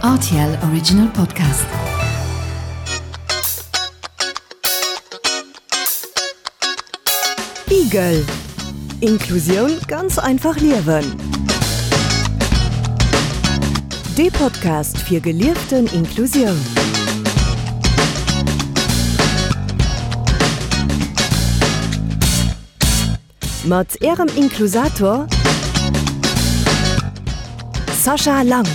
Rtl Original Podcast. Igel Inklusioun ganz einfach liewen. Dee Podcast fir gelieften Inklusioun. Mat Ärem Inklusator Sascha Lang.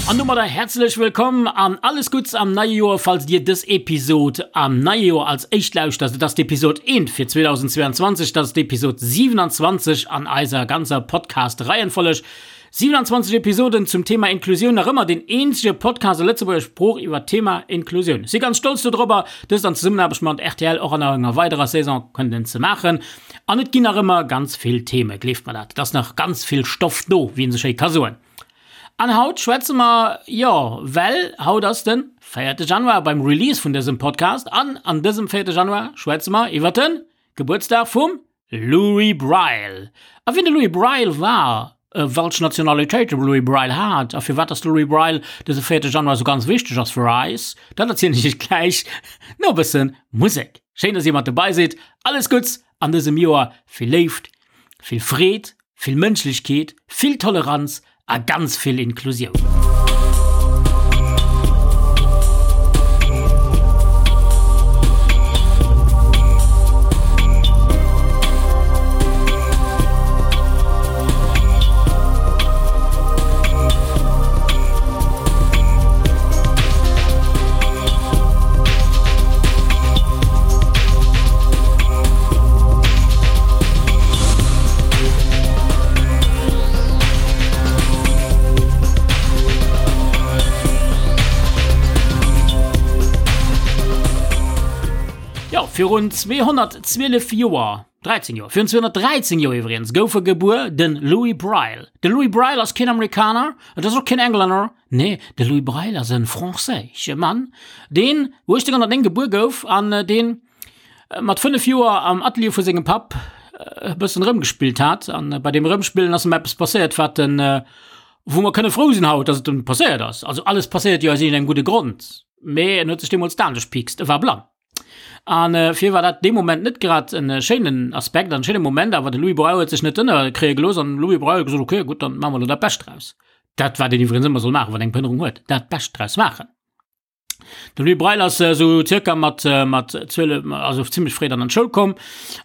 An domadder häerzlech wëllkomm an alles Gutts am neie Joer, falls dir dës Episod am neie Joer als éischt lauschtert. Et ass d'Episod 1 fir 2022, dat ass d'Episod 27 an eiser ganzer Podcast-Reihenfolleg. 27 Episoden zum Thema Inklusioun, nach ëmmer deen eenzege Podcast a Lëtzebuerger Sprooch iwwer d'Thema Inklusioun. Si ganz stolz dodrobber, dëst an Zesummenaarbecht mat rtl och an enger weiderer Saison kënnen ze maachen. An et ginn nach ëmmer ganz vill Theme, gleeft mer dat, et ass nach ganz vill Stoff do, wéi een sou schéi ka soen. An haut schwätze mer, jo, well haut ass de véierte Januar beim Release vun dësem Podcast an an dësem véierte Januar schwätze mer iwwer de Gebuertsdag vum Louis Braille. A wien de Louis Braille war, welch Nationalitéit de Louis Braille hat a firwat dass de Louis Braille dëse véierte Januar esou ganz wichteg ass fir eis, dat erzielen ech iech gläich no e bësse Musek. Schéin, dass dir mat dobei sidd. Alles Gutts an dësem Joer, vill Léift, vill Freed, vill Mënschlechkeet, vill Toleranz A ganz vill Inklusioun. Jo, virun 212 Joer, 13 Joer, virun 213 Joer iwwregens, gouf e gebuer, de Louis Braille. De Louis Braille ass keen Amerikaner, et ass och keen Englänner, nee, de Louis Braille ass e franséische Mann, deen 1809 gebuer gouf an deen mat 5 Joer am Atelier vu sengem Papp e bëssen erëmgespillt hat. An bei deem Erëmspillen ass em eppes passéiert, wat en, wou mer kënne frou sinn haut, dass et em passéiert ass. Also alles passéiert jo aus iergendengem gudde Grond, mee en huet sech deemools d'An gepiekst, e war blann. An fir war dat dee Moment net grad en schéinen Aspekt an schéine Moment, awer de Louis Braille huet sech net ënnerkréie gelooss an Louis Braille huet gesot, okay, gutt, dann maache mer elo dat Bescht draus. Dat wat een iwwregens ëmmer soll maachen, wann eng Behënnerung huet, dat Bescht draus maachen. De Louis Braille ass esou zirka mat mat 12, also zimmlech fréi dann an d'Schoul komm,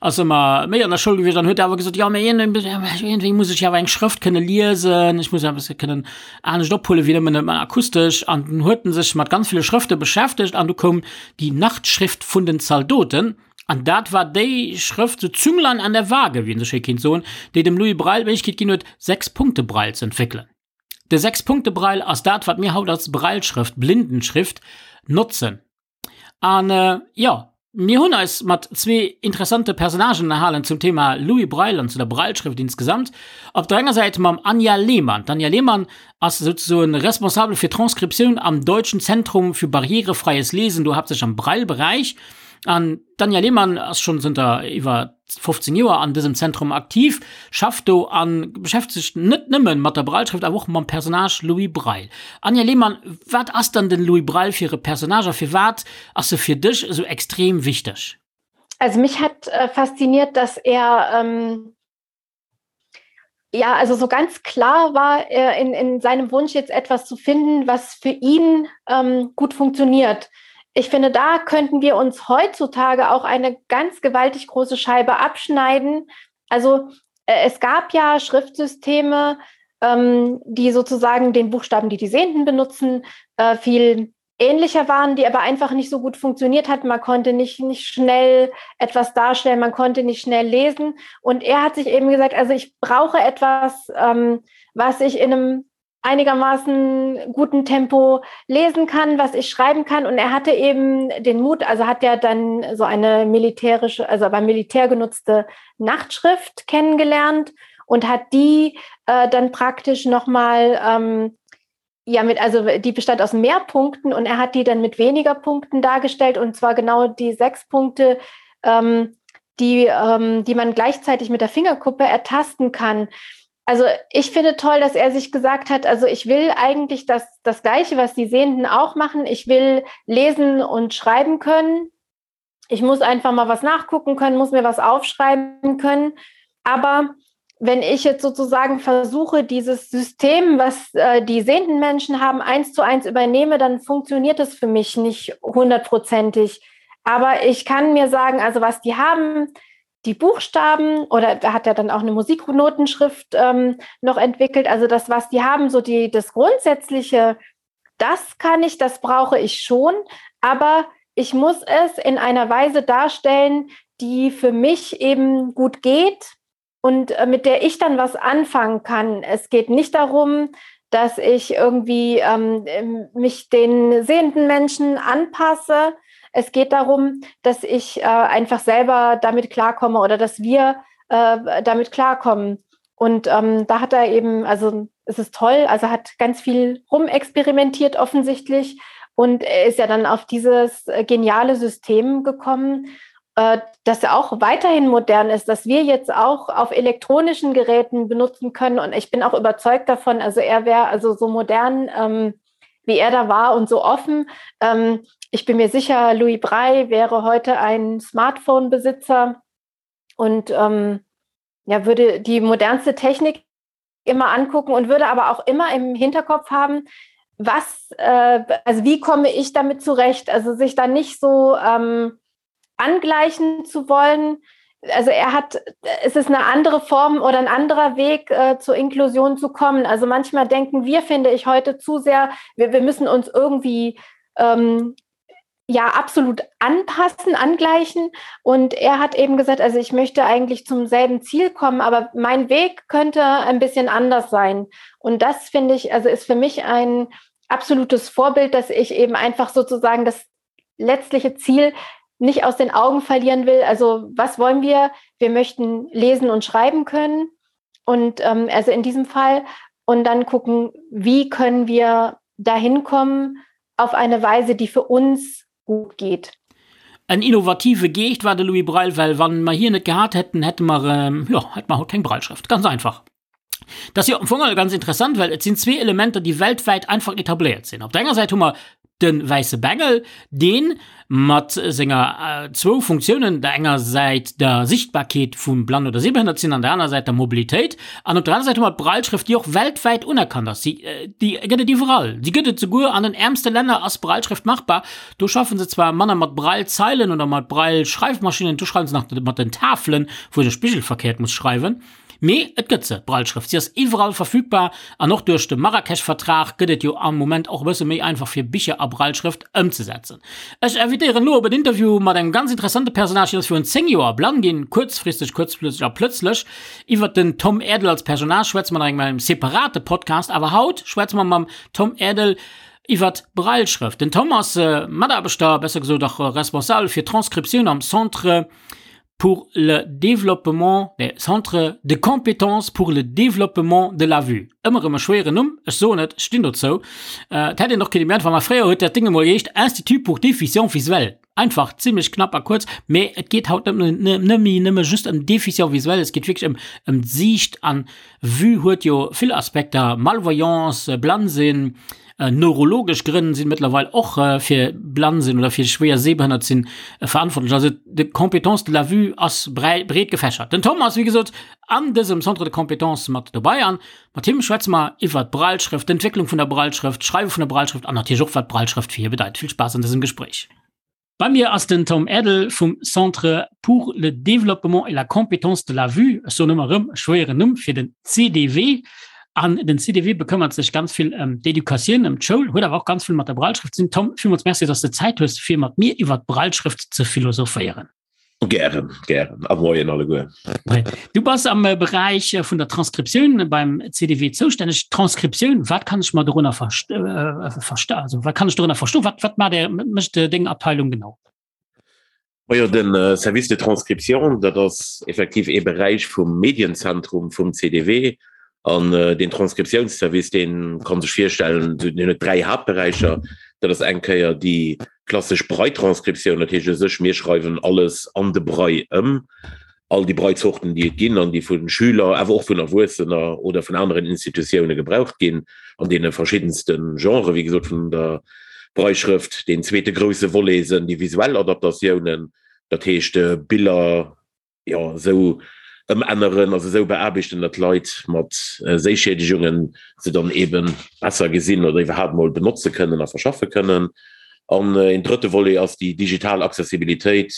ass ëmmer méi an der Schoul gewiescht an huet awer gesot, jo mee iergendwéi muss ech jo awer eng Schrëft kënne liesen, ech muss eppes kënnen anescht ophuelen wéi nëmmen ëmmer akustesch. An dunn huet en sech mat ganz ville Schrëfte beschäftegt an du koum déi Nachtschrift vun den Zaldoten an dat war déi Schrëft, so Zünglein an der Waage, wéi een esou schéi kéint soen, déi dem Louis Braille d'Méiglechkeet ginn huet, Sechs-Punkte-Braille ze entwéckelen. De Sechs-Punkte-Braille ass dat, wat mir haut als Brailleschrëft, Blindenschrift, notzen. An jo, mir hunn eis mat zwee interessante Personnagen ënnerhalen zum Thema Louis Braille an zu der Brailleschrëft insgesamt. Op der enger Säit mam Anja Lehmann. D'Anja Lehmann ass souzesoen responsabel fir Transkriptioun am Deutschen Zentrum für barrierefreies Lesen, do haaptsächlech am Braille-Beräich. An d'Anja Lehmann ass schonn zënter iwwer 15 Joer an dësem Zentrum aktiv, schafft do a beschäftegt sech net nëmme mat der Brailleschrëft, awer och mam Personnage Louis Braille. Anja Lehmann, wat ass dann den Louis Braille fir e Personnage a firwat ass e fir dech esou extrem wichteg? Also mich hat äh, fasziniert, dass er ähm, ja, also so ganz klar war er in, in seinem Wunsch jetzt etwas zu finden, was für ihn ähm, gut funktioniert. Ich finde, da könnten wir uns heutzutage auch eine ganz gewaltig große Scheibe abschneiden. Also äh, es gab ja Schriftsysteme, ähm, die sozusagen den Buchstaben, die die Sehenden benutzen, äh, viel ähnlicher waren, die aber einfach nicht so gut funktioniert hat. Man konnte nicht, nicht schnell etwas darstellen, man konnte nicht schnell lesen. Und er hat sich eben gesagt, also ich brauche etwas, ähm, was ich in einem einigermaßen guten Tempo lesen kann, was ich schreiben kann. Und er hatte eben den Mut, also hat er dann so eine militärische, also beim Militär genutzte Nachtschrift kennengelernt und hat die äh, dann praktisch nochmal ähm, ja mit also die bestand aus mehr Punkten und er hat die dann mit weniger Punkten dargestellt und zwar genau die sechs Punkte, ähm, die, ähm, die man gleichzeitig mit der Fingerkuppe ertasten kann. Also ich finde toll, dass er sich gesagt hat, also ich will eigentlich das, das Gleiche, was die Sehenden auch machen. Ich will lesen und schreiben können. Ich muss einfach mal was nachgucken können, muss mir was aufschreiben können. Aber wenn ich jetzt sozusagen versuche, dieses System, was äh, die sehenden Menschen haben, eins zu eins übernehme, dann funktioniert das für mich nicht hundertprozentig. Aber ich kann mir sagen, also was die haben, die Buchstaben oder da hat er dann auch eine Musiknotenschrift ähm, noch entwickelt. Also das, was die haben, so die, das Grundsätzliche, das kann ich, das brauche ich schon. Aber ich muss es in einer Weise darstellen, die für mich eben gut geht und äh, mit der ich dann was anfangen kann. Es geht nicht darum, dass ich irgendwie ähm, mich den sehenden Menschen anpasse. Es geht darum, dass ich äh, einfach selber damit klarkomme oder dass wir äh, damit klarkommen. Und ähm, da hat er eben, also es ist toll, also hat ganz viel rumexperimentiert offensichtlich und er ist ja dann auf dieses äh, geniale System gekommen, äh, das auch weiterhin modern ist, dass wir jetzt auch auf elektronischen Geräten benutzen können. Und ich bin auch überzeugt davon, also er wäre also so modern, ähm, wie er da war und so offen. Ähm, ich bin mir sicher, Louis Braille wäre heute ein Smartphone-Besitzer und ähm, ja, würde die modernste Technik immer angucken und würde aber auch immer im Hinterkopf haben, was, äh, also wie komme ich damit zurecht? Also sich da nicht so ähm, angleichen zu wollen. Also er hat, es ist eine andere Form oder ein anderer Weg äh, zur Inklusion zu kommen. Also manchmal denken wir, finde ich, heute zu sehr, wir, wir müssen uns irgendwie ähm, ja absolut anpassen, angleichen. Und er hat eben gesagt, also ich möchte eigentlich zum selben Ziel kommen, aber mein Weg könnte ein bisschen anders sein. Und das finde ich, also ist für mich ein absolutes Vorbild, dass ich eben einfach sozusagen das letztliche Ziel nicht aus den Augen verlieren will. Also was wollen wir? Wir möchten lesen und schreiben können. Und ähm, also in diesem Fall und dann gucken, wie können wir dahin kommen auf eine Weise, die für uns gut geht. En innovative Geescht war de Louis Braille, well wann mer hien net gehat hätten, hätte mer, jo, hätte mer haut keng Brailleschrëft. Ganz einfach. Dat ass jo am Fong all ganz interessant, well et sinn zwee Elementer, déi weltwäit einfach etabléiert sinn. Op der enger Säit hu mer de wäisse Bengel, dee mat senger zwou Funktiounen, der enger Säit der Sichtbarkeet vum Blann oder Sehbehënnert sinn an der anerer Säit der Mobilitéit, an op der anerer Säit hu mer d'Brailleschrëft, déi och weltwäit unerkannt ass. Si, déi gëtt et iwwerall. Déi gëtt et souguer an den äermste Länner ass Brailleschrëft machbar. Do schaffen se zwar manner mat Braillezeilen oder mat Brailleschreifmaschinnen, do schreiwen se nach mat den Tafelen, wou een e spigelverkehrt muss schreiwen. Mee et gëtt se, d'Brailleschrëft. Si ass iwwerall verfügbar an och duerch de Marrakesch-Vertrag gëtt et jo am Moment och e bësse méi einfach fir Bicher a Brailleschrëft ëmzesetzen. Ech invitéieren elo op en Interview mat engem ganz interessante Personnage, hien ass virun 10 Joer blann ginn, kuerzfristeg, kuerzplötzlech a plötzlech. Iwwert den Tom Erdel als Personnage schwätze mer nach engem separate Podcast, awer haut schwätze mer mam Tom Erdel iwwert d'Brailleschrëft. Den Tom ass Mataarbechter, besser gesot och Responsabel fir d'Transkriptioun am Centre pour le développement, nee, Centre de compétences pour le développement de la vue. Ëmmer erëm e schwéieren Numm, ech soen et, ech stinn dozou. Et hätt een och kënne méi einfach maachen. Fréier huet dat Ding emol geheescht Institut pour déficients visuels. Einfach, zimlech knapp a kuerz. Mee et geet haut net net méi nëmme just ëm Déficients visuels, et geet wierklech ëm ëm d'Siicht an Vue huet jo vill Aspekter, Malvoyance, blann sinn, Neurologesch Grënn sinn mëttlerweil och fir blann sinn oder fir schwéier sehbehënnert sinn verantwortlech. Also de Compétence de la vue ass breet gefächert. Den Tom ass wéi gesot an dësem Centre de compétences mat dobei an mat him schwätze mer iwwert d'Brailleschrëft, d'Entwécklung vun der Brailleschrëft, d'Schreiwe vun der Brailleschrëft an natierlech och wat d'Brailleschrëft fir hie bedeit. Vill Spaass an dësem Gespréich. Bei mir ass den Tom Erdel vum Centre pour le développement et la compétence de la vue, ech soen ëmmer erëm, e schwéieren Numm fir den CDV. An den CDV bekëmmert sech ganz vill ëm d'Educatioun, ëm d'Schoul, huet awer och ganz vill mat der Brailleschrëft ze dinn. Tom, villmools Merci, dass de Zäit hues, fir mat mir iwwer d'Brailleschrëft ze philosophéieren. Gären, gären. A Moien alleguer. Du bass am äh, Beräich äh, vun der Transkriptioun beim CDW zoustänneg. Transkriptioun, wat kann ech mer dorunner verst äh, versta also, wat kann ech dorunner verstoen? Wat, wat mat der mécht äh, deng Abteilung genau? Majo, den äh, Service de Transcription, dat ass effektiv ee Beräich vum Medienzentrum vum CDW. An äh, den Transkriptiounsservice, deen kann sech virstellen, den huet dräi Haaptberäicher. Dat ass eng Kéier déi Klassesch Brailletranskriptioun, dat heescht u sech, mir schreiwen alles an de Braille ëm. all déi Braille-Zorten, déi et ginn an déi vu Schüler, awer och vun Erwuessener oder vun aneren Institutioune gebraucht ginn, an deene verschiddenste Genren, wéi gesot, vun der Brailleschrëft. Deen zweete grousse Volet sënn déi visuell Adaptatiounen, dat heescht Biller, jo, esou ëmänneren, also esou beaarbechten, datt d'Leit mat Séischiedegungen se dann eebe besser gesinn oder iwwerhaapt emol benotze kënnen a verschaffe kënnen. An een drëtte Volet ass déi digital Accessibilitéit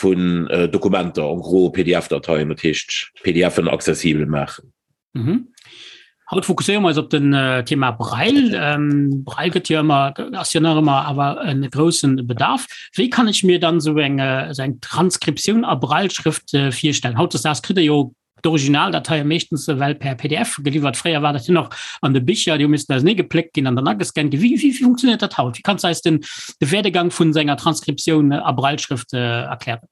vun Dokumenter, en gros PDF-Dateien, dat heescht PDFen accessibel maachen. Mhm. Haut fokusséiere mer eis op den äh, Thema Braille. Ähm, Braille gëtt jo ëmmer, ass jo nach ëmmer awer en groussen Bedarf. Wéi kann ech mir dann so eng, äh, so eng Transkriptioun a Brailleschrëft äh, virstellen? Hautdesdaags kritt der jo d'Originaldateie meeschtens ewell per PDF geliwwert. Fréier war dat jo nach an de Bicher, déi hu missen ausenee gepléckt ginn an dann agescannt ginn. Wéi, wéi, wéi funktioniert dat haut? Wéi kanns du eis den, de Werdegang vun senger Transkriptioun a Brailleschrëft äh, erklären?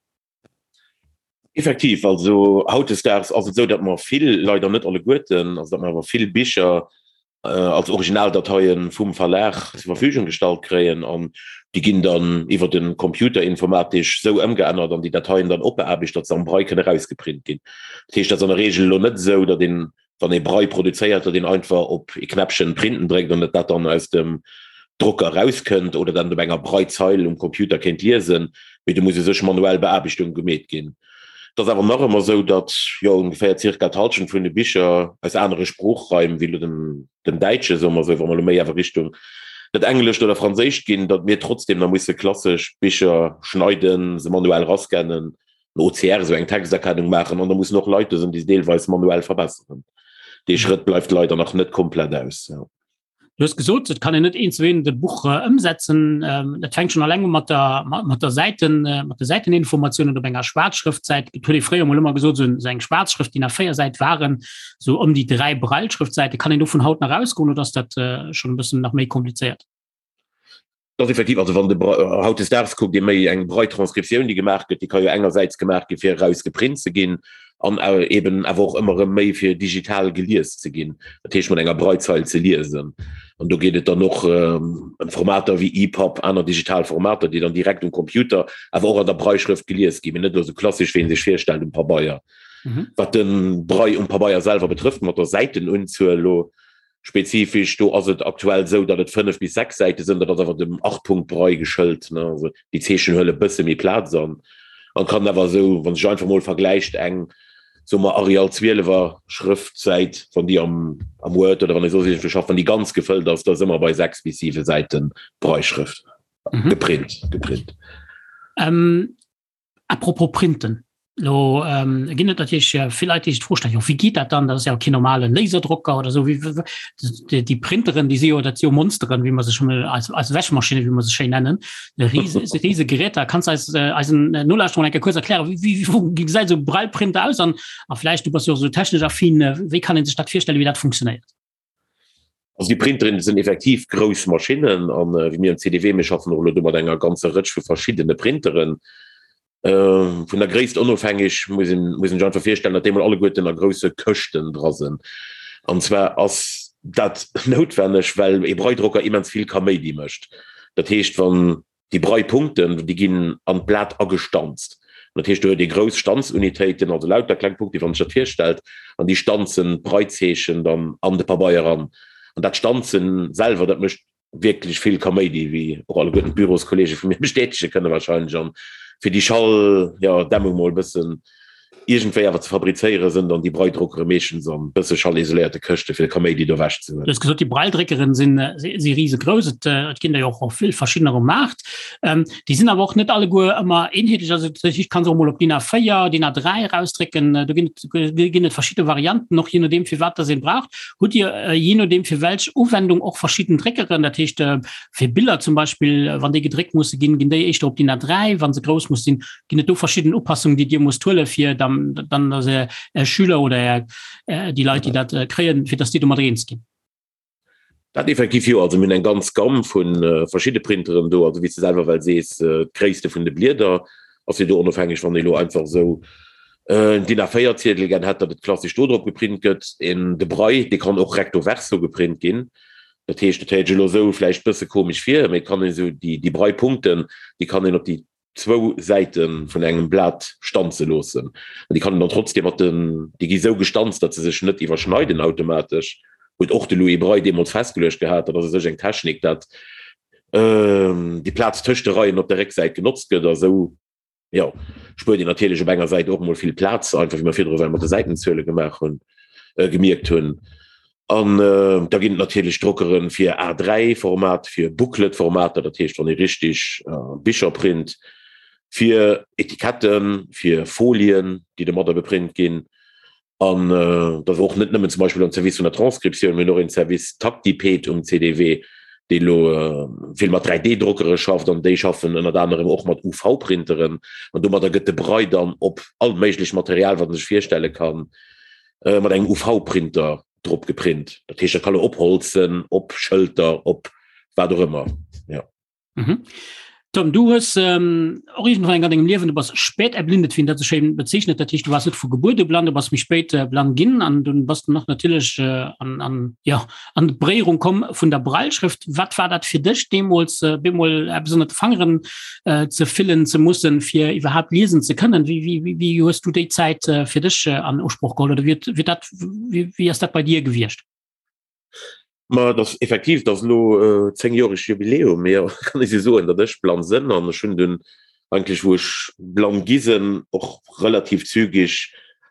Effektiv, also hautdesdaags ass et esou, datt mer vill, leider net alleguerten, also datt mer awer vill Bicher als Originaldateie vum Verlag zur Verfügung gestallt kréien an déi ginn dann iwwer de Computer informatesch esou ëmgeännert an déi Dateien dann opbeaarbecht, datt se am Braille kënne erausgeprint ginn. Dat heescht, dat ass an der Reegel elo net esou, datt een wann ee Braille produzéiert, datt een einfach op ee Knäppchen Printen dréckt an datt dat dann aus dem Drocker erauskënnt oder dat op enger Braillezeil um Computer kéint liesen, mee do muss u sech manuell Beaarbechtung gemeet ginn. Et ass awer nach ëmmer esou, datt jo ongeféier zirka d'Hallschent vun de Bicher aus anere Sproochraim wéi elo dem dem Däitsche, soe mer esou, wa mer elo méi awer Richtung dat Englescht oder Franséischt ginn, datt mir trotzdem nach musse klassesch Bicher schneiden, se manuell rascannen, en OCR, esou eng Texterkennung maachen an da mussen och Leit do sinn, déi se deelweis manuell verbesseren. Dee Schrëtt bleift leider nach net komplett aus. Du hues gesot, et kann een net eent zu eent e Buch ëmsetzen. Dat fänkt schonn alleng u mat der, mat der Säiten, mat de Säiteninformatiounen op enger Schwaarzschrëftsäit. Et huet ee fréier emol ëmmer gesot, esou eng Schwaarzschrëft, DIN A4-Säit waren esou ëm déi 3 Brailleschrëftsäiten. Kann een dovun haut nach ausgoen oder ass dat schonn e bëssen nach méi komplizéiert? Dat ass effektiv, also wann de hautdesdaags kuckt ee méi eng Braille-Transkriptioun, déi gemaach gëtt, déi ka jo engersäits gemaach gi fir eraus geprint ze ginn an eben awer och ëmmer erëm méi fir digital gelies ze ginn, dat heescht mat enger Braillezeil ze liesen. An do geet et dann och ëm Formater wéi EPUB, aner digital Formater, déi dann direkt um Computer, awer och an der Brailleschrëft gelies ginn, mee net elo esou klassesch, wéi ee sech virstellt um Pabeier. Wat de Braille um Pabeier selwer betrëfft, mat der Säitenunzuel elo, Spezifesch, do ass et aktuell esou, datt et 5 bis 6 Säite sënn, dat ass awer dem Achtpunktbraille geschëlt, ne, also déi Zeechen huele bësse méi Plaz an, an kann awer esou, wann sech einfach mol vergläicht, eng, soe mer Arial 12er Schrëftsäit, wann déi am am Word oder wann ee soss iergendwou schafft, wann déi ganz gefëllt ass, da si mer bei 6 bis 7 Säite Brailleschrëft, geprint, geprint. Apropos Printen, Lo ginn et natierlech vill Leit, déi sech d'Fro stellen, jo wéi geet dat dann? Dat ass jo keen normale Laserdrocker oder esou. Wéi déi Printeren, déi si jo, dat si jo Monsteren, wéi mer se schonn eis eis Wäschmaschinne, wéi mer se schéin nennen, rise rise Geräter. Kanns de eis eisen Nolauschterern eng Kéier kuerz erklären, wéi wéi gesäit esou e Braille-Printer aus? An a vläicht, du bass jo och esou technesch affin, wéi kann ee sech dat virstellen, wéi dat funktionéiert? Also déi Printeren sinn effektiv grouss Maschinnen an wéi mir am CDW, mir schaffen och elo do mat enger ganzer Rëtsch vu verschiddene Printeren. Vun der Gréisst onofhängeg muss een muss een sech einfach virstellen, datt déi mol alleguerten a grousse Këschten dra sinn. An zwar ass dat noutwenneg, well ee Braille-Drocker immens vill Kaméidi mécht. Dat heescht, wann Déi Braillepunkten, déi ginn an d'Blat agestanzt. Dat heescht, do huet ee grouss Stanzunitéiten, also lauter kleng Punkte, wann een sech dat virstellt, an déi stanzen d'Braillezeechen dann an de Pabeier eran. An dat Stanzen selwer, dat mécht wierklech vill Kaméidi, wéi och alleguerten d'Büroskollege vu mir bestätege kënne wahrscheinlech. An fir déi Schall, jo, Dämmung mol e bëssen Iergendwéi awer ze fabrizéieren, sënn dann déi Braille-Drockere meeschtens an bësse schallisoléierte Këschte fir de Kaméidi do ewech ze huelen. Du hues gesot, déi Braille-Dréckeren sinn si risegrouss. Et et ginn der jo och vill verschiddener um Maart. Déi sinn awer och net alleguer ëmmer eenheetlech. Also dat heescht, kann se och mol op DIN A4, DIN A3 erausdrécken. Do ginn et ginn et verschidde Varianten, och jee nodeem fir wat dass een braucht. Hutt Dir jee nodeem fir welch Uwendung och verschidden Dréckeren? Dat heescht fir Biller zum Beispill, wann déi gedréckt musse ginn, ginn déi éischter op DIN A3, wa se grouss muss sinn. Ginn et do verschidden Upassungen, déi Dir musst huelen, fir dann, dann dass Är, Är Schüler oder Är, déi Leit, déi dat kréien, fir dass déi domat eens ginn? Dat effektiv jo. Also mir hunn eng ganz Gamm vu verschidde Printeren do. Also wéi s de selwer well sees, d'Gréisste vun de Blieder ass jo do onofhängeg, wann ee lo einfach esou en DIN A4-Ziedel gär hätt, datt et klassesch do drop geprint gëtt. En de Braille, dee kann och recto verso geprint ginn. Dat heescht, dat héiert sech elo esou vläicht bësse komesch vir, mee et kann een esou déi, déi Braille-Punkten, déi kann een op déi. Zwou Säite vun engem Blat stanze loossen. An déi kann een dann trotzdem mat den, déi gi sou gestanzt, datt se sech net iwwerschneiden automatesch, huet och de Louis Braille deemools festgeluecht gehat. Dat ass u sech eng Technik, dat déi Plaz tëscht de Reien op der Récksäit genotzt gëtt a sou, jo, spuert een natierlech op enger Säit och emol vill Plaz, einfach wéi mer virdru well mat de Säitenzuele gemaach hunn, gemierkt hunn. An da ginn et natierlech Drockere fir A3-Format, fir Booklet-Formater, dat heescht wann ee richtig Bicher print, fir Etiketten, fir Folien, déi domadder beprint ginn. An da och net nëmmen zum Beispill am Service vun der Transkriptioun, mir hunn och een Service Tactiped um CDW, dee elo vill mat 3D-Drockere schafft an déi schaffen ënnert anerem och mat UV-Printeren. An domadder gëtt de Braille dann op all méiglecht Material, wat ee sech virstelle kann, mat engem UV-Printer drop geprint. Dat heescht, dat kann op Holz sinn, op Schëlter, op wat och ëmmer. Ja. Mhm. Tom, du hues ähm, och irgendwann an dengem Liewen, du bass spät erblindet, wéi een dat sou schéin bezeechnet, dat heescht, du waars net vu Gebuert u blann, du bass méi spéit äh, blann ginn an dunn bass du nach natierlech äh, an, an, ja, an d'Beréierung komm vun der Brailleschrëft. Wat war dat fir dech deemools, äh, bemol eppes ënnert de Fangeren äh, ze fillen ze mussen, fir iwwerhaapt liesen ze kënnen? Wéi, wéi, wéi, wéi hues du déi Zäit äh, fir dech äh, an Usproch geholl oder wéi, wéi, dat, wéi, wéi ass dat bei dir gewiescht? Ma dat ass effektiv, dat ass elo äh, zéngjoreg Jubiläum, mee kann ech soen, datt ech blann sënn an ech hunn dunn eigentlech, wou ech blann gi sënn, och relativ zügig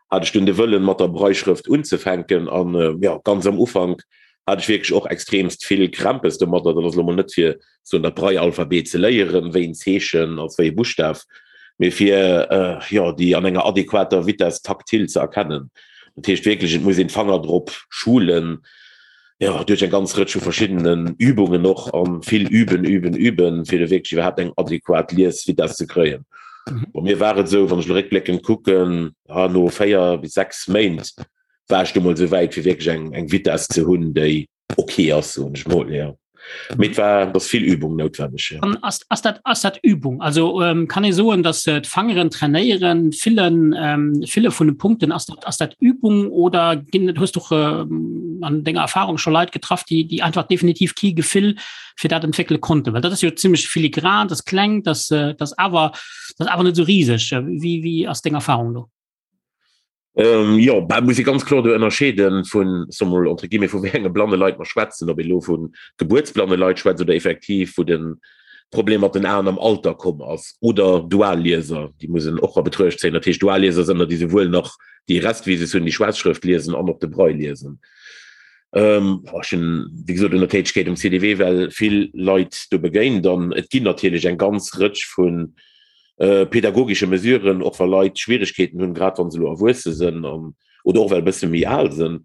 hat ech dunn de Wëllen, mat der Brailleschrëft unzefänken an äh, ja, ganz am Ufank hat ech wierklech och extremst vill Krämpes domadder. Dat ass elo mol net fir soen dat Braille-Alphabet ze léieren, wéi en Zeechen als wéi e Buschtaf, mee fir jo déi an enger adequater Vitesse taktil ze erkennen. Dat heescht wierklech, et muss een d'Fanger drop schulen, jo duerch eng ganz Rëtsch vu verschiddenen Übungen och, a vill üben, üben, üben, fir do wierklech iwwerhaapt eng adequat Liesvitesse ze kréien. Bei mir war et esou, wann ech elo réckbléckend kucken, no 4 bis 6 Méint war ech du mol esou wäit, fir wierklech eng eng Vitesse ze hunn, déi okay ass, soen ech mol, jo. Mee et war, et ass vill Übung noutwenneg, jo. An ass, ass dat, ass dat Übung? Also ähm, kann ee soen, datt äh, d'Fangeren trainéieren, fillen, ähm, fille vun de Punkten, ass dat, ass dat Übung oder ginn, hues du äh, an denger Erfahrung scho Leit getraff, déi, déi einfach definitiv kee Gefill fir dat entwéckele konnten? Well dat ass jo zimmlech filigran, dat ass kleng, dat, äh, dat ass awer, dat ass awer net esou riseg. Wéi, wéi ass deng Erfahrung do? Ähm, jo, bah, muss ee ganz kloer do ënnerscheeden vun, soe mol, entre guillemets, vu wéi enge blanne Leit mer schwätzen, ob ee lo vu gebuertsblanne Leit schwätzt oder effektiv wou de Problem mat den Aen am Alter komm ass, oder Duallieser, déi muss een och a Betruecht zéien. Dat heescht, Duallieser sënn der, déi souwuel nach déi Restvisus hunn, déi Schwaarzschrëft liesen an och de Braille liesen. Ähm, ech hunn, wéi gesot, un der Tätegkeet um CDW well vill Leit do begéint an et ginn natierlech eng ganz Rëtsch vun pädagogesche Mesuren, och wa Leit Schwierigkeeten hunn, grad wa se elo erwuesse sënn an oder och well e bësse méi al sënn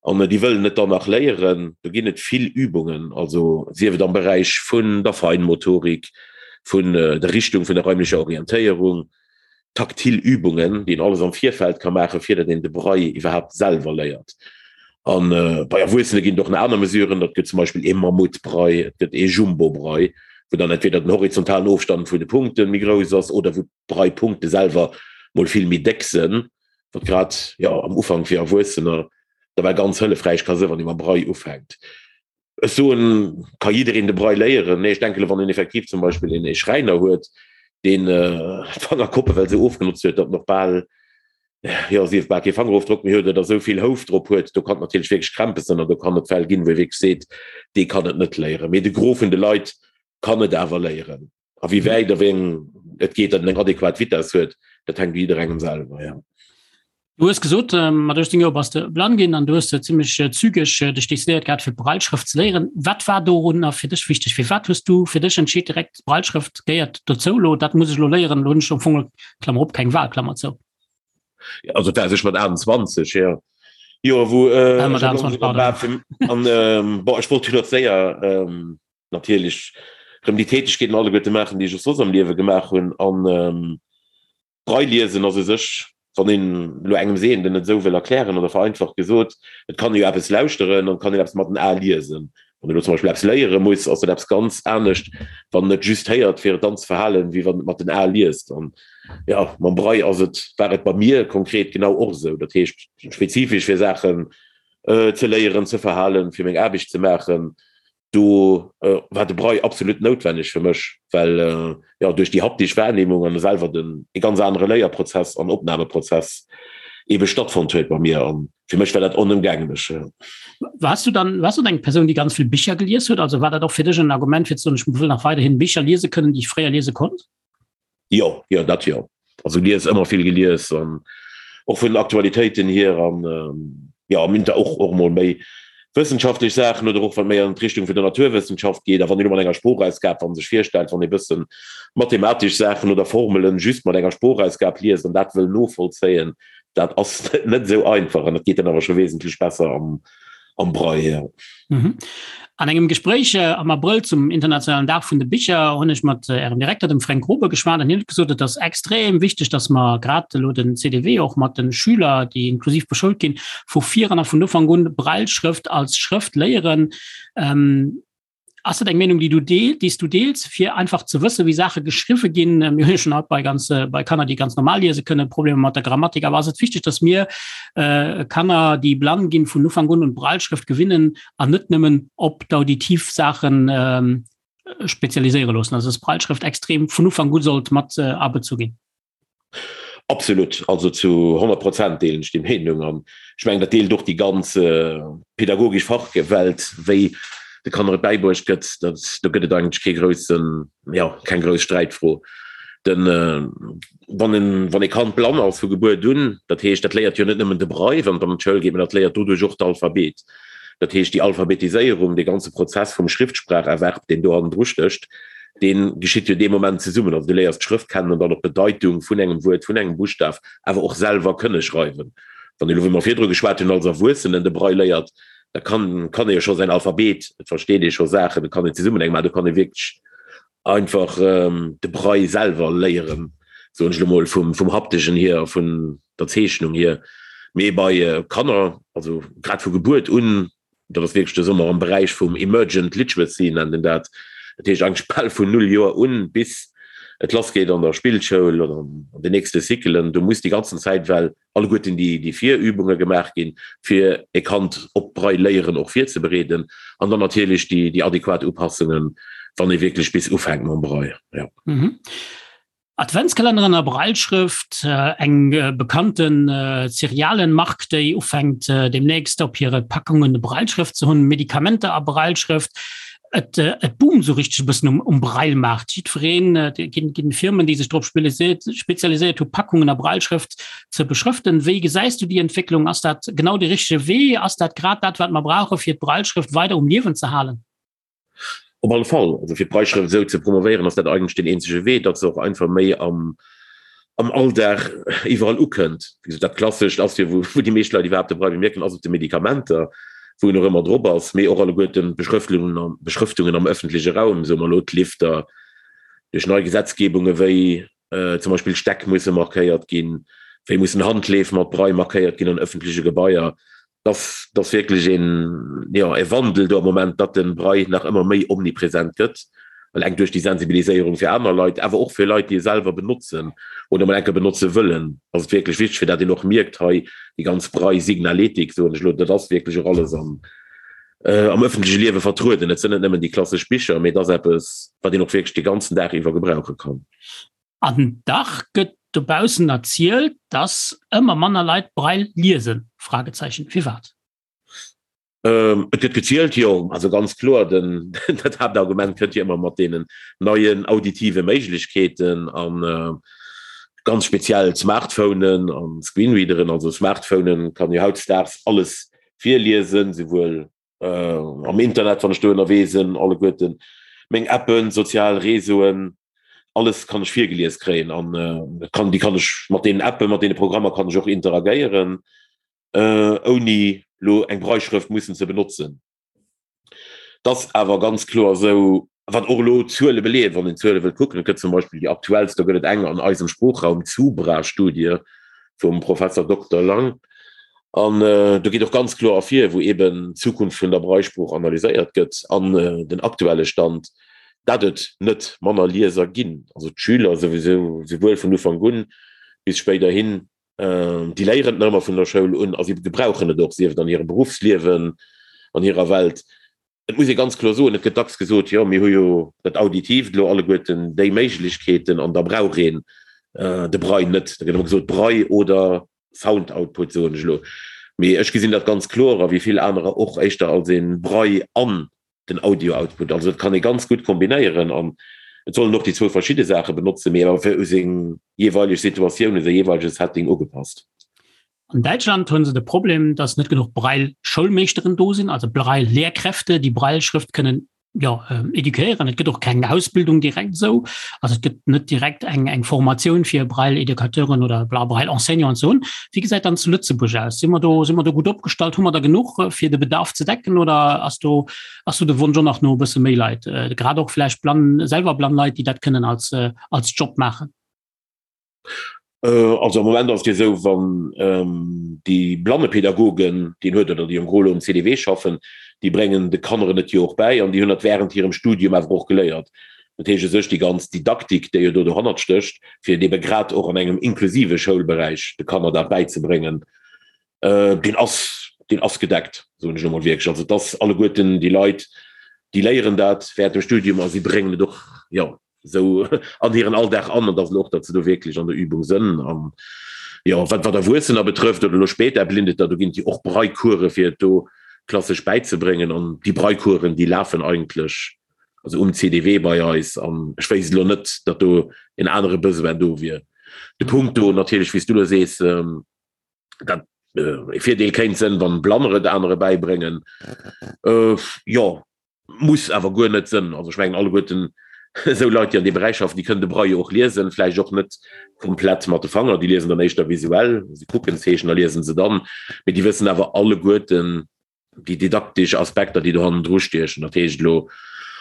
an déi wëllen et dann nach léieren. Do ginn et vill Übungen, also sief et am Beräich vun der Feinmotorik, vun der Richtung vun der räumlecher Orientéierung, taktil Übungen, déi een alles am Virfeld ka maachen, fir datt een de Braille iwwerhaapt selwer léiert. A bei Erwuessene ginn et och nach aner Mesuren, dat gëtt zum Beispill ee Mammutbraille, et gëtt ee Jumbo-Braille, wou dann entweder den horizontalen Ofstand vun de Punkte méi grouss ass oder wou d'Braillepunkte selwer mol vill méi déck sënn, wat grad, jo, am Ufank fir Erwuessener da well ganz hëllefräich ka sënn, wann ee mam Braille ufänkt. Ech soen, ka jiddereen de Braille léieren? Nee, ech denken, wann een effektiv zum Beispill een ee Schräiner huet, deen d'Fangerkoppe well esou ofgenotzt huet, datt en och bal, jo, sief bal kee Fangerofdrock méi huet oder esou vill Houf drop huet, do kann et natierlech wierklech Krämpes sinn an do kann et Fäll ginn, wou ee wierklech seet, dee kann et net léieren. Mee de Gros vun de Leit kann et awer léieren. A wéi wäit a wéi eng et geet, datt en eng adequat Vitess huet, dat hänkt u jidderengem selwer, jo. Du hues gesot, mat 18 Joer bass de blann ginn an du hues zimmlech zügeg dech decidéiert gehat, fir d'Brailleschrëft ze léieren. Wat war dorunner fir dech wichteg? Firwat hues du fir dech entscheet, direkt d'Brailleschrëft gehéiert dozou elo, dat muss ech elo léieren, elo hunn ech am Fong, Klammer op, keng Wahl, Klammer zou? Also dat war sech mat 28, jo. Jo, wou äh, mat 28, pardon. An, ähm, bon, ech wollt jo nach séier, ähm, natierlech rëm déi Tätegkeeten alleguerte maachen, déi ech och soss am Liewe gemaach hunn. An Braille liesen ass u sech, wann een elo engem Sehenden et esou wëll erklären oder vereinfacht gesot, et kann ee jo eppes lauschteren an et kann een eppes mat den Ae liesen. Wann een elo zum Beispill eppes léiere muss, ass dat eppes ganz anescht, wann en et just héiert, fir et dann ze verhalen, wéi wann en et mat den Ae liest. An jo, mam Braille ass et, war et bei mir konkret genau och esou. Dat heescht, spezifesch fir Saachen ze léieren, ze verhalen, fir meng Aarbecht ze maachen. Do war de Braille absolut noutwenneg fir mech, well jo duerch déi haptisch Wahrnehmung an selwer den e ganz anere Léierprozess an Opnahmeprozess ebe stattfonnt huet bei mir an fir mech war dat onëmgänglech. Warst du dann, warst du eng Persoun, déi ganz vill Bicher gelies huet? Also war dat och fir dech en Argument fir ze soen, ech wëll nach weiderhin Bicher liese kënnen, déi ech fréier liese konnt? Jo, jo, dat jo. Also lies ëmmer vill gelies an och vun den Aktualitéiten hier an jo am Inter och och mol méi wëssenschaftlech Saachen oder och wat méi an d'Richtung vun der Naturwëssenschaft geet. A wann een elo mat enger Sproochausgab, wann sech virstellt, wann ee bëssen mathematesch Saachen oder Formelen just mat enger Sproochausgab liest an dat wëll novollzéien, dat ass net esou einfach an dat geet dann awer scho wesentlech besser am am Braille. Mhm. An engem Gespréich äh, am Abrëll zum internationalen Dag vun de Bicher hunn ech mat äh, Ärem Direkter dem Fränk Grobe geschwat an hien huet gesot, et ass extrem wichteg, datt mer grad elo den CDW och mat den Schüler, déi inklusiv beschoult ginn, vu vir an a vun Ufank un Brailleschrëft als Schrëft léieren. Ähm, Ass dat eng Meenung, déi du deel, déi s du deels, fir einfach ze wëssen, wéi Saache geschriwwe ginn? Mir hunn jo schonn haut bei ganz, bei Kanner, déi ganz normal liese kënnen, Problemer mat der Grammatik. Awer ass et wichteg, datt mir Kanner, déi blann ginn, vun Ufank un un d'Brailleschrëft gewinnen an net nëmmen op d'auditiv Saachen spezialiséiere loossen? Also datt d'Brailleschrëft extrem vun Ufank u sollt mat abezu ginn? Absolut, also zu 100 Prozent deelen ech déi Meenung an ech mengen, dat deelt och déi ganz pädagogesch Fachwelt, wéi de Kanner et bäibruecht gëtt. Dat, do gëtt et eigentlech kee groussen, jo, keng grouss Sträitfro. Den, wann en, wann e Kand blann ass vu Gebuert un, dat heescht, dat léiert jo net nëmmen de Braille, wann et an d'Schoul geet, mä dat léiert doduerch och d'Alphabet. Dat heescht, déi Alphabetiséierung, dee ganze Prozess vum Schriftspracherwerb, deen do hannendru stécht, dee geschitt jo dee Moment zesummen. Also du léiers d'Schrëft kennen an dann och d'Bedeitung vun engem Wuert, vun engem Buschtaf, awer och selwer kënne schreiwen. Wann ee elo, wéi mer virdru geschwat hunn, als Erwuessenen de Braille léiert, da kann kann ee jo scho säin Alphabet, et versteet ee scho Saachen, et kann een zesummen eng maachen, do kann ee wierklech einfach de Braille selwer léieren, soen ech elo mol, vum vum Hapteschen hier a vun der Zeechnung hier. Mee bei Kanner, also grad vu Gebuert un, dat ass wierklech de Sommer am Beräich vum Emergent Literacy nennt een dat, dat heescht eigentlech bal vun null Joer un, bis et lassgeet an der Spillschoul oder an den nächste Cyclen, do muss déi ganzen Zäit well alleguerten déi déi Virübunge gemaach ginn, fir e Kand op d'Braille léieren och virzebereeden an dann natierlech déi déi adequat Upassungen, wann ee wierklech bis ufänkt mam Braille, jo. Adventskalenneren a Brailleschrëft, eng bekannten Cerealenmark, déi ufänkt deemnächst op hire Packungen Brailleschrëft ze hunn, Medikamenter a Brailleschrëft. Et et boomt esou richteg e bëssen um um Braille-Maart. Jiddwereen, et ginn ginn Firmen, déi sech drop spezialiséiert hu Packungen a Brailleschrëft ze beschrëften. Wéi gesäis du déi Entwécklung? Ass dat genau de richtege Wee? Ass dat grad dat, wat mer brauche fir d'Brailleschrëft weider um Liewen ze halen? Op alle Fall. Also fir d'Brailleschrëft esou ze promovéieren, ass dat eigentlech deen eenzege Wee, datt se och einfach méi am, am Alldag iwwerall ukënnt. Wéi gesot, dat Klassescht ass jo, wou, wou déi meescht Leit iwwerhaapt de Braille bemierken, ass op de Medikamenter, wou en och ëmmer drop ass, mee och alleguerten d'Beschrëftlungen am, Beschrëftungen am ëffentleche Raum, soe mer elo d'Lifter, duerch nei Gesetzgebunge wéi zum Beispill Stäck musse markéiert ginn, wéi mussen Handleef mat Braille markéiert ginn an ëffentleche Gebaier. Dass dass wierklech een, jo, e Wandel do am Moment, datt de Braille nach ëmmer méi omnipresent gëtt, eleng duerch déi Sensibiliséierung fir aner Leit, awer och fir Leit, déi e selwer benotzen oder mol enke benotze wëllen, ass et wierklech wichteg, fir dat een och mierkt, hei déi ganz Braille-Signaletik, soen ech elo, dat ass wierklech och alles am am ëffentleche Liewe vertrueden. Et sinn net nëmmen déi klassesch Bicher, mee et ass eppes, wat een och wierklech de ganzen Dag iwwer gebrauche kann. An dach gëtt dobaussen erzielt, dass ëmmer manner Leit Braille liesen? Fragezeichen, Firwat? Et gëtt gezielt, jo. Also ganz kloer, den, dat Haaptargument kënnt jo ëmmer mat deenen neien auditive Méiglechkeeten a ganz speziell d'Smartphonen an Screenreaderen. Also Smartphonen kann jo hautdesdaags alles virliesen, souwuel am Internet, wann ech do ënnerwee sinn, alleguerten meng Appen, sozial Réseauen, alles kann ech virgelies kréien an kann déi kann ech mat deenen Appen, mat deene Programmer kann ech och interagéieren, ouni lo eng Brailleschrëft mussen ze benotzen. Et ass awer ganz kloer esou, wat och elo d'Zuele beleeën, wann een d'Zuele wëllt kucken, et gëtt zum Beispill déi aktuellst, do gëtt et eng an eisem Sproochraum, d'SUBRA-Studie vum Professor Dokter Lang, An do geet och ganz kloer ervir, wou eeben d'Zukunft vun der Braillesprooch analyséiert gëtt an den aktuelle Stand, dat et net manner Lieser ginn. Also d'Schüler souwisou, souwuel vun Ufank un bis spéiderhin, déi léieren et nach ëmmer vun der Schoul un a si gebrauchen et och, sief et an hirem Beruffsliewen, an hirer Welt. Et muss ee ganz kloer soen, et gëtt dacks gesot, jo mir hu jo dat Auditiivt elo alleguerten, déi Méiglechkeeten an da brauch een de Braille net. Da gëtt ëmmer gesot, Braille oder Sound Output, soen ech elo. Mee ech gesinn dat ganz kloer, a wéi vill anerer och, éischter als ee Braille an den Audio Output. Also dat kann ee ganz gutt kombinéieren an et sollen och déi zwou verschidde Saache benotzen, mee awer fir u seng jeeweileg Situatioun, u säi jeeweilege Setting ugepasst. An Däitschland hunn se de Problem, dass net genuch Braille-Schoulmeeschteren do sinn, also Braille-Lehrkräfte, déi Braille-Schrëft kënnen jo, eduquéieren. Et gëtt och keng Ausbildung direkt esou. Also et gëtt net direkt eng, eng Formatioun fir Braille-Educateuren oder Braille-Enseignanten ze hunn. Wéi gesäit dann zu Lëtzebuerg aus? Si mer do, si mer do gutt opgestallt? Hu mer der genuch, fir de Bedarf ze decken oder ass do, ass do de Wonsch och nach no e bësse méi Leit, grad och vläicht blann, selwer blann Leit, déi dat kënnen als, als Job maachen? Also am Moment ass et jo esou, wann déi Blannepädagogen, déi een huet oder déi en gros elo um CDW schaffen, déi bréngen de Kanneren et jo och bäi an déi hunn dat während hirem Studium awer och geléiert. Dat heescht u sech déi ganz Didaktik, déi jo do dohannert stécht, fir et ebe grad och an engem inklusive Schoulberäich de Kanner dat bäizebréngen, deen ass, deen ass gedeckt, soen ech elo mol wierklech. Also et ass alleguerten déi Leit, déi léieren dat während dem Studium a si bréngen et och, jo, esou an hiren Alldag an, an dass elo och, datt se do wierklech an der Übung sënn. An jo, wat wat Erwuessener betrëfft oder elo spéider Blindeter, do ginn et jo och Braillecourse fir et do klassesch bäizebréngen. An déi Braillecoursen, déi lafen eigentlech also um CDW bei eis an ech wéisst elo net, datt do en anere Besoin do wier. De Punkt do natierlech, wéi s du elo sees, dat e Virdeel kéint sënn, wann Blanner et anere bäibréngen, jo, Muss awer guer net sënn. Also ech mengen alleguerten esou Leit, déi an deem Beräich schaffen, déi kënnen de Braille och liesen, vläicht och net komplett mat de Fanger, déi liesen dann éischter visuell, se kucken d'Zeechen a liesen se dann, mee déi wëssen awer alleguerten déi didaktesch Aspekter, déi do hannendru stiechen, dat heescht elo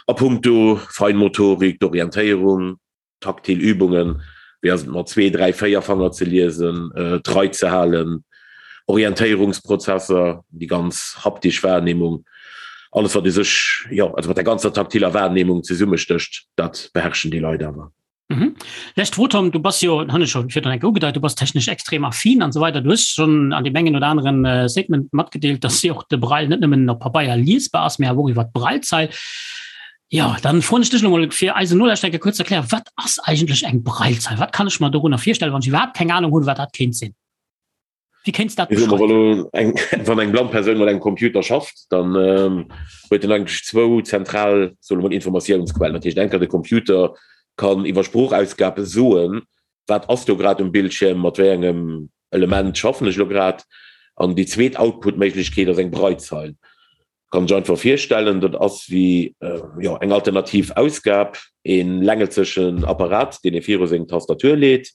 a puncto Feinmotorik, d'Orientéierung, Taktil Übungen, wéi ass et mat zwee, dräi, véier Fanger ze liesen, d'Rei ze halen, Orientéierungsprozesser, déi ganz haptisch Wahrnehmung, alles wat u sech, jo, also mat der ganzer taktiller Wahrnehmung zesummestécht, dat beherrschen déi Leit awer. Mhm. Lescht Fro, Tom, du bass jo, hunn ech scho virdrun eng Kéier ugedeit, du bass technesch extrem affin an esou weider. Du hues schonn an deem engen oder aneren Statement matgedeelt, dass jo och de Braille net nëmmen op Pabeier liesbar ass, mä awer och iwwer d'Braillezeil. Jo, dann froen ech dech elo mol fir eisen Nolauschterer kuerz ze erklären, wat ass eigentlech eng Braillezeil? Wat kann ech mer dorunner virstellen, wann ech iwwerhaapt keng Ahnung hunn, wat dat kéint sinn? Wéi kéints dat beschreiwen? Wann eng blann Persoun mat engem Computer schafft, dann huet en eigentlech zwou zentral, soe mer mol, Informatiounsquellen. Dat heescht, enker de Computer kann iwwer Sproochausgab soen, wat ass do grad um Bildschierm, mat wéi engem Element schaffen ech elo grad. An déi zweet Output-Méiglechkeet ass eng Braillezeil. Kann sech einfach virstellen, dat ass wéi jo eng alternativ Ausgab, e längelzechen Apparat, deen ee viru seng Tastatur leet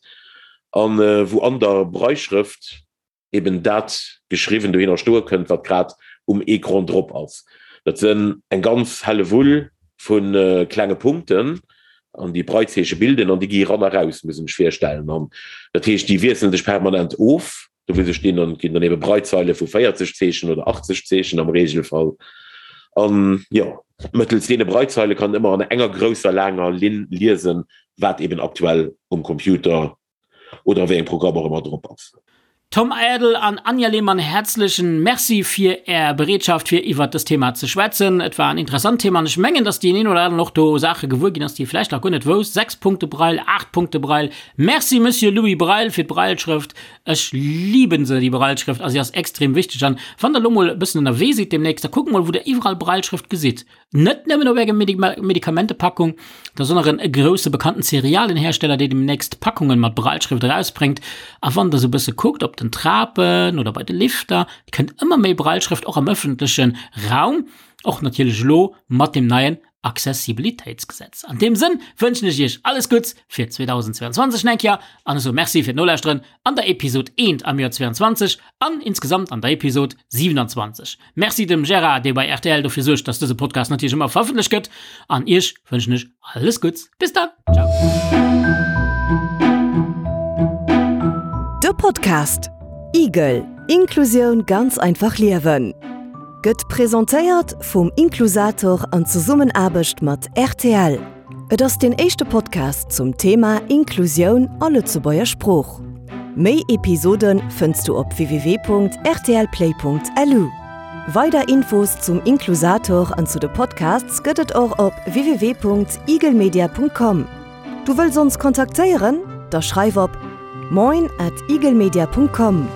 an wou an der Brailleschrëft eben dat geschriwwen dohinner stoe kënnt, wat grad um Ecran drop ass. Dat sënn eng ganz Hellewull vu klenge Punkten an déi Braillezeeche bilden an déi gi eran a raus, muss een sech virstellen. An dat heescht, déi wiesselen sech permanent of. Do wou se stinn an ginn dann ebe Braillezeile vu 40 Zeechen oder 80 Zeechen am Regelfall. An jo, mëttels deene Braillezeile kann en ëmmer an enger grousser laanger Linn liesen, wat eben aktuell um Computer oder a wéi engem Programm och ëmmer drop ass. Tom Aerdel an Anja Lehmann häerzlechen Merci fir Är Bereetschaft fir iwwert dëst Thema ze schwätzen. Et war en interessant Thema an ech mengen, dass deen een oder aneren och do Saache gewuer ginn ass, déi e vläicht nach guer net wousst. 6 Punkte Braille, 8 Punkte Braille. Merci Monsieur Louis Braille fir d'Brailleschrëft. Ech liben se, déi Brailleschrëft, a si ass extrem wichteg. An wann der elo mol e bëssen ënnerwee sidd demnächst, da kuckt mol, wou der iwwerall Brailleschrëft gesitt. Net nëmmen op enger Medikamentepackung, da sonderen e grousse bekannten Cerealienhersteller, dee demnächst Packungen mat Brailleschrëft erausbréngt. A wann der sou bësse kuckt, op den Trapen oder bei de Lifter, et kënnt ëmmer méi Brailleschrëft och am ëffentleche Raum, och natierlech elo mat deem neien Accessibilitéitsgesetz. An deem Sënn wënschen ech iech alles Gutts fir 2022 nach eng Kéier an ech soe Merci fir d'Nolauschteren an der Episod 1 am Joer 22 an insgesamt an der Episod 27. Merci dem Gérard, dee bei rtl dofir suergt, dass dëse Podcast natierlech ëmmer verëffentlecht gëtt an iech wënschen ech alles Gutts. Bis dann, ciao. De Podcast Igel, Inklusioun ganz einfach liewen gëtt presentéiert vum Inklusator an Zesummenaarbecht mat rtl. Et ass deen éischte Podcast zum Thema Inklusioun a Lëtzebuerger Sprooch. Méi Episode fënns du op www.rtlplay.lu. Weider Infos zum Inklusator an zu de Podcasts gëtt et och op www.eaglemedia.com. Du wëlls ons kontaktéieren? Da schreif op moin at eaglemedia.com.